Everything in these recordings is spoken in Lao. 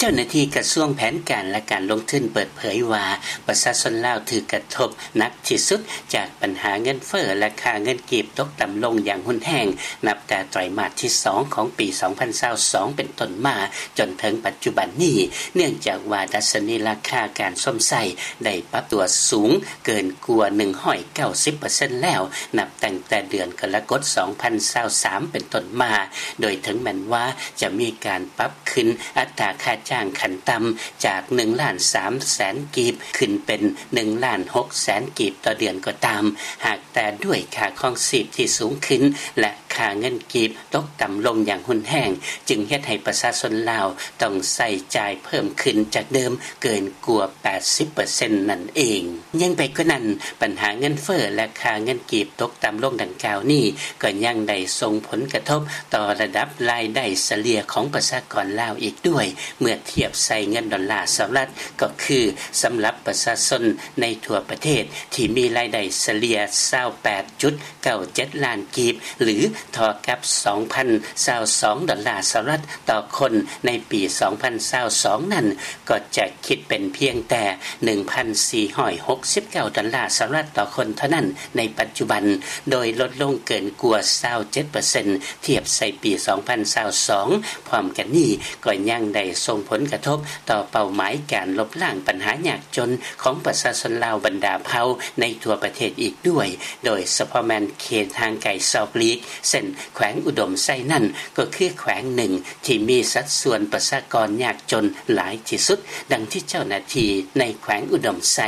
ເຈົ້າໜ້າທີ່ກະຊວງແຜນການ ແລະ ການລົງທຶນເປີດເຜີຍວ່າ ປະຊາຊົນລາວຖືກກະທົບໜັກທີ່ສຸດຈາກບັນຫາເງິນເຟີ້ ແລະ ຄ່າເງິນກີບຕົກຕ່ຳລົງຢ່າງຮຸນແຮງ ນັບແຕ່ໄຕຣມາດທີສອງຂອງປີສອງພັນຊາວສອງເປັນຕົ້ນມາ ຈົນເຖິງປັດຈຸບັນນີ້ ເນື່ອງຈາກວ່າດັດຊະນີລາຄາການຊົມໃຊ້ໄດ້ປັບຕົວສູງເກີນກວ່າໜຶ່ງຮ້ອຍເກົ້າສິບເປີເຊັນແລ້ວ ນັບຕັ້ງແຕ່ເດືອນກໍລະກົດສອງພັນຊາວສາມເປັນຕົ້ນມາ ໂດຍເຖິງແມ່ນວ່າຈະມີການປັບ ຂຶ້ນອັດຕາຄ່າຈ້າງຂັ້ນຕ່ຳຈາກໜຶ່ງລ້ານສາມແສນກີບ ຂຶ້ນເປັນໜຶ່ງລ້ານຫົກແສນກີບຕໍ່ເດືອນກໍຕາມ, ຫາກແຕ່ດ້ວຍຄ່າຄອງຊີບທີ່ສູງຂຶ້ນ ແລະ ຄ່າເງິນກີບຕົກຕ່ຳລົງຢ່າງຮຸນແຮງ, ຈຶ່ງເຮັດໃຫ້ປະຊາຊົນລາວຕ້ອງໃຊ້ຈ່າຍເພີ່ມຂຶ້ນຈາກເດີມເກີນກວ່າແປດສິບເປີເຊັນນັ້ນເອງ. ຍິ່ງໄປກວ່ານັ້ນ, ບັນຫາເງິນເຟີ້ ແລະ ຄ່າເງິນກີບຕົກຕ່ຳລົງດັ່ງກ່າວນີ້ ກໍຍັງໄດ້ສົ່ງຜົນກະທົບຕໍ່ລະດັບລາຍໄດ້ສະເລ່ຍຂອງປະຊາກອນລາວອີກດ້ວຍ ເມື່ອທຽບໃສ່ເງິນດອນລາສະຫະລັດ ກໍຄືສຳລັບປະຊາຊົນໃນທົ່ວປະເທດທີ່ມີລາຍໄດ້ສະເລ່ຍຊາວແປດຈຸດເກົ້າເຈັດລ້ານກີບ ຫຼື ເທົ່າກັບສອງພັນຊາວສອງດອນລາສະຫະລັດຕໍ່ຄົນໃນປີສອງພັນຊາວສອງນັ້ນ ກໍຈະຄິດເປັນພຽງແຕ່ໜຶ່ງພັນສີ່ຮ້ອຍຫົກສິບເກົ້າດອນລາສະຫະລັດຕໍ່ຄົນເທົ່ານັ້ນໃນປັດຈຸບັນ, ໂດຍລົດລົງເກີນກວ່າຊາວເຈັດເປີເຊັນທຽບໃສ່ປີສອງພັນຊາວສອງ. ພ້ອມກັນນີ້ກໍຍັງໄດ້ສົ່ງຜົນກະທົບຕໍ່ເປົ້າໝາຍການລົບລ້າງບັນຫາຍາກຈົນຂອງປະຊາຊົນລາວບັນດາເຜົ່າໃນທົ່ວປະເທດອີກດ້ວຍ, ໂດຍສະເພາະແມ່ນເຂດຫ່າງໄກສອກຫຼີກ ເຊັ່ນ ແຂວງອຸດົມໄຊນັ້ນ ກໍຄືແຂວງໜຶ່ງທີ່ມີສັດສ່ວນປະຊາກອນຍາກຈົນຫຼາຍທີ່ສຸດ, ດັ່ງທີ່ເຈົ້າໜ້າທີ່ໃນແຂວງອຸດົມໄຊ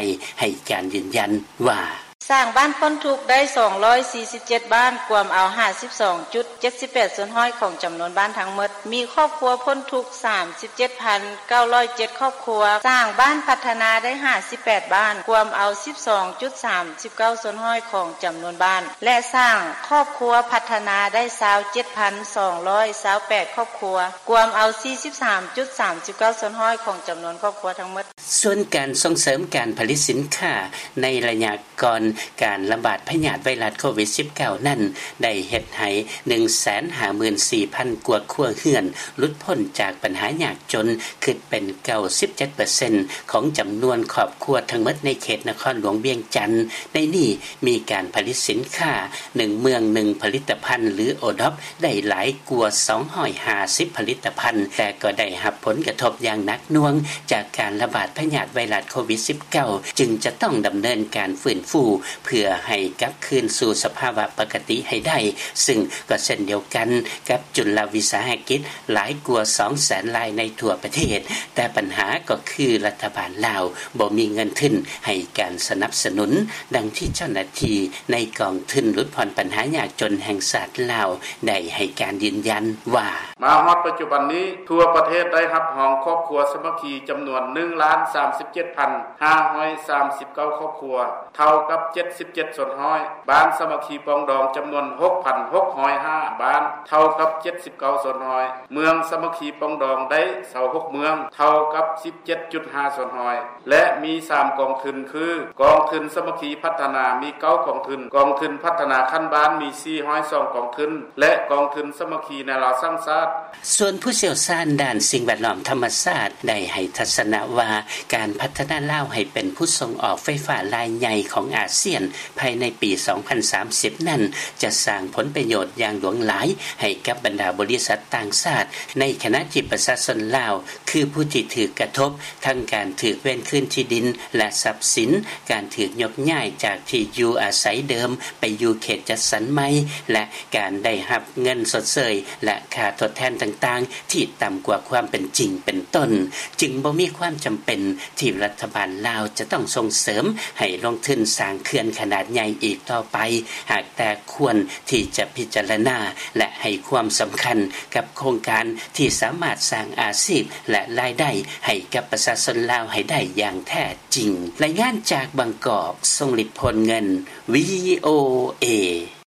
ໃຫ້ການຢືນຢັນວ່າ: ສ້າງບ້ານພົ້ນທຸກໄດ້ສອງຮ້ອຍສີ່ສິບເຈັດບ້ານ, ກວມເອົາຫ້າສິບສອງຈຸດເຈັດສິບແປດສ່ວນຮ້ອຍຂອງຈຳນວນບ້ານທັງໝົດ, ມີຄອບຄົວພົ້ນທຸກສາມສິບເຈັດພັນເກົ້າຮ້ອຍເຈັດຄອບຄົວ, ສ້າງບ້ານພັດທະນາໄດ້ຫ້າສິບແປດບ້ານ, ກວມເອົາສິບສອງຈຸດສາມສິບເກົ້າສ່ວນຮ້ອຍຂອງຈຳນວນບ້ານ ແລະ ສ້າງຄອບຄົວພັດທະນາໄດ້ຊາວເຈັດພັນສອງຮ້ອຍຊາວແປດຄອບຄົວ, ກວມເອົາສີ່ສິບສາມຈຸດສາມສິບເກົ້າສ່ວນຮ້ອຍຂອງຈຳນວນຄອບຄົວທັງໝົດ. ສ່ວນການສົ່ງເສີມການຜະລິດສິນຄ້າໃນໄລຍະ ກ່ອນການລະບາດພະຍາດໄວຣັສໂຄວິດສິບເກົ້ານັ້ນ ໄດ້ເຮັດໃຫ້ໜຶ່ງແສນຫ້າໝື່ນສີ່ພັນກວ່າຄົວເຮືອນ ຫຼຸດພົ້ນຈາກບັນຫາຍາກຈົນ ຂຶ້ນເປັນເກົ້າສິບເຈັດເປີເຊັນຂອງຈຳນວນຄອບຄົວທັງໝົດໃນເຂດນະຄອນຫຼວງວຽງຈັນ. ໃນນີ້ມີການຜະລິດສິນຄ້າໜຶ່ງເມືອງໜຶ່ງຜະລິດຕະພັນ ຫຼື ໂອດອບ ໄດ້ຫຼາຍກວ່າສອງຮ້ອຍຫ້າສິບຜະລິດຕະພັນ, ແຕ່ກໍໄດ້ຮັບຜົນກະທົບຢ່າງໜັກໜ່ວງຈາກການລະບາດພະຍາດໄວຣັສໂຄວິດສິບເກົ້າ ຈຶ່ງຈະຕ້ອງດຳເນີນການຟື້ນຟູເພື່ອໃຫ້ກັບຄືນສູ່ສະພາວະປົກກະຕິໃຫ້ໄດ້, ຊຶ່ງກໍເຊັ່ນດຽວກັນກັບຈຸລະວິສາຫະກິດຫຼາຍກວ່າສອງແສນລາຍໃນທົ່ວປະເທດ, ແຕ່ບັນຫາກໍຄືລັດຖະບານລາວບໍ່ມີເງິນທຶນໃຫ້ການສະໜັບສະໜູນ, ດັ່ງທີ່ເຈົ້າໜ້າທີ່ໃນກອງທຶນຫຼຸດຜ່ອນບັນຫາຍາກຈົນແຫ່ງຊາດລາວ ໄດ້ໃຫ້ການຢືນຢັນວ່າ: ມາຮອດປັດຈຸບັນນີ້ ທົ່ວປະເທດໄດ້ຮັບຮອງຄອບຄົວສາມັກຄີຈຳນວນໜຶ່ງລ້ານສາມສິບເຈັດພັນຫ້າຮ້ອຍສາມສິບເກົ້າຄອບຄົວ, ເທົ່າກັບເຈັດສິບເຈັດສ່ວນຮ້ອຍ, ບ້ານສາມັກຄີປອງດອງຈຳນວນຫົກພັນຫົກຮ້ອຍຫ້າບ້ານ, ເທົ່າກັບເຈັດສິບເກົ້າສ່ວນຮ້ອຍ, ເມືອງສາມັກຄີປອງດອງໄດ້ຊາວຫົກເມືອງ, ເທົ່າກັບສິບເຈັດຈຸດຫ້າສ່ວນຮ້ອຍ. ແລະ ມີສາມກອງທຶນຄື ກອງທຶນສາມັກຄີພັດທະນາມີເກົ້າກອງທຶນ, ກອງທຶນພັດທະນາຂັ້ນບ້ານມີສີ່ຮ້ອຍສອງກອງທຶນ ແລະ ກອງທຶນສາມັກຄີແນວລາວສ້າງຊາດ. ສ່ວນຜູ້ຊ່ຽວຊານດ້ານສິ່ງແວດລ້ອມທຳມະຊາດ ໄດ້ໃຫ້ທັດສະນະວ່າ ການພັດທະນາລາວໃຫ້ເປັນຜູ້ສົ່ງອອກໄຟຟ້າລາຍໃຫຍ່ຂອງອາຊຽນ ພາຍໃນປີສອງພັນສາມສິບນັ້ນ ຈະສ້າງຜົນປະໂຫຍດຢ່າງຫຼວງຫຼາຍໃຫ້ກັບບັນດາບໍລິສັດຕ່າງຊາດ, ໃນຂະນະທີ່ປະຊາຊົນລາວ ຄືຜູ້ທີ່ຖືກກະທົບ ທັງການຖືກເວນຄືນທີ່ດິນ ແລະ ຊັບສິນ, ການຖືກຍົກຍ້າຍຈາກທີ່ຢູ່ອາໄສເດີມໄປຢູ່ເຂດຈັດສັນໃໝ່ ແລະ ການໄດ້ຮັບເງິນຊົດເຊີຍ ແລະ ຄ່າທົດແທນຕ່າງໆ ທີ່ຕ່ຳກວ່າຄວາມເປັນຈິງເປັນຕົ້ນ, ຈຶ່ງບໍ່ມີຄວາມຈຳເປັນທີ່ລັດຖະບານລາວຈະຕ້ອງສົ່ງເສີມໃຫ້ລົງທຶນສ້າງເຂື່ອນຂະໜາດໃຫຍ່ອີກຕໍ່ໄປ, ຫາກແຕ່ຄວນທີ່ຈະພິຈາລະນາ ແລະ ໃຫ້ຄວາມສຳຄັນກັບໂຄງການທີ່ສາມາດສ້າງອາຊີບ ແລະ ລາຍໄດ້ໃຫ້ກັບປະຊາຊົນລາວໃຫ້ໄດ້ຢ່າງແທ້ຈິງ. ລາຍງານຈາກບາງກອກ, ຊົງລິດ ໂພນເງິນ, ວີໂອເອ.